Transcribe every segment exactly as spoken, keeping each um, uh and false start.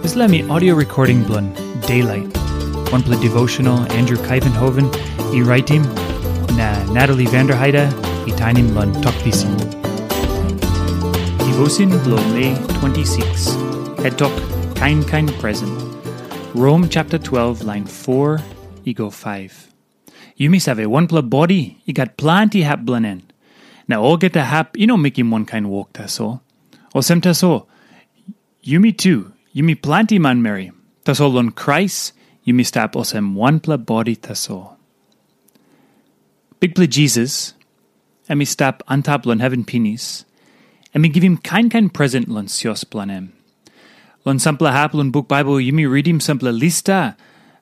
Dispela mi audio recording bilong Daylight, wanpela devotional Andrew Kaivenhoven i raitim, na Natalie Vanderheide i tainim long Tok Pisin. Devotion bilong Mei twenty-six, head tok, kain kain present. Rom chapter twelve, line four i go five. Yumi save, wanpela bodi i gat planti hap bilong en, na olgeta hap i no mekim wankain wok tasol. Olsem tasol, yumi tu, yumi planti manmeri, tasol long Krais yumi stap olsem wanpela bodi tasol. Bikpela Jisas, em i stap antap long heven pinis, em i givim kain kain present long sios bilong em. Long sampela hap long buk Baibel, yumi ritim sampela lista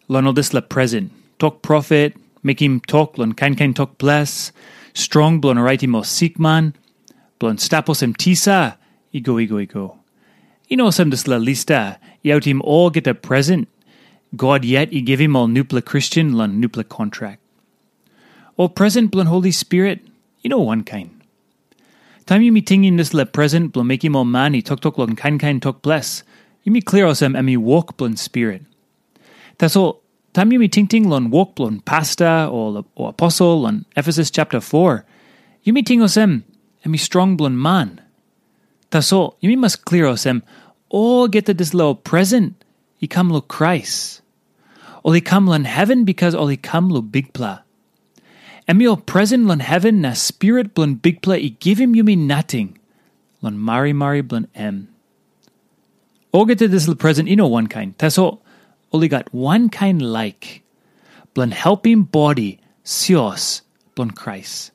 long ol dispela present. Tok profet, mekim tok long kain kain tok ples, strong bilong raitim ol sikman, bilong stap olsem tisa, i go, i go, i go. I no olsem dispela lista i autim olgeta present God yet i givim ol nupela Kristen long nupela kontrak. Ol present bilong Holi Spirit, i no wankain. Taim yumi tingim dispela present bilong mekim ol man i toktok long kain kain tok ples, yumi klia olsem em i wok bilong Spirit. Tasol, taim yumi tingting long wok bilong pasta o, o aposel long Efesus chapter four, yumi ting olsem em i strong bilong man. Tasol, yumi mas klia olsem, olgeta dispela ol present i kam long Krais. Ol i kam long heven bikas ol i kam long Bikpela. Em i ol present long heven na Spirit bilong Bikpela i givim yumi nating long marimari bilong em. Olgeta dispela present i no wankain, tasol ol i gat wankain laik bilong helpim bodi sios bilong Krais.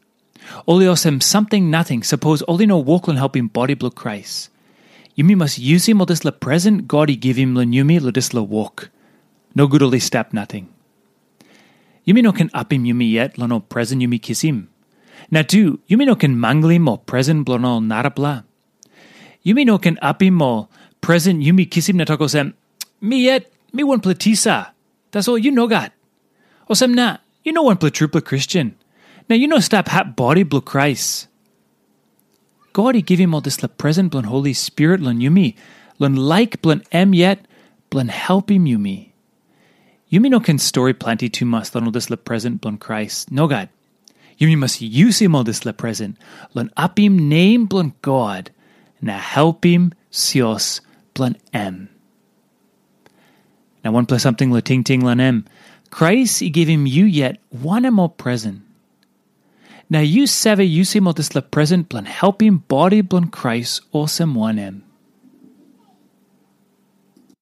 Ol i olsem samting nating sapos ol i no wok long helpim bodi bilong Krais. Yumi mas yusim ol dispela present God i givim long yumi long dispela wok. Nogut ol i stap nating. Yumi no ken apim yumi yet long ol present yumi kisim. Na tu, yumi no ken manglim ol present bilong ol narapela. Yumi no ken apim ol present yumi kisim na tok olsem, "Mi yet, mi wanpela tisa. Tasol yu nogat. Olsem na, yu no wanpela trupela Kristen. Na yu no stap hap bodi bilong Krais." God i givim ol dispela present bilong Holi Spirit long yumi, long laik bilong em yet, bilong helpim yumi. Yumi no ken stori planti tumas long ol dispela present bilong Krais. Nogat. Yumi mas yusim ol dispela present long apim nem bilong God na helpim sios bilong em. Na wanpela samting long tingting long em, Krais i givim yu yet wanem ol present? Na yu save yusim ol dispela present bilong helpim bodi bilong Krais olsem wanem?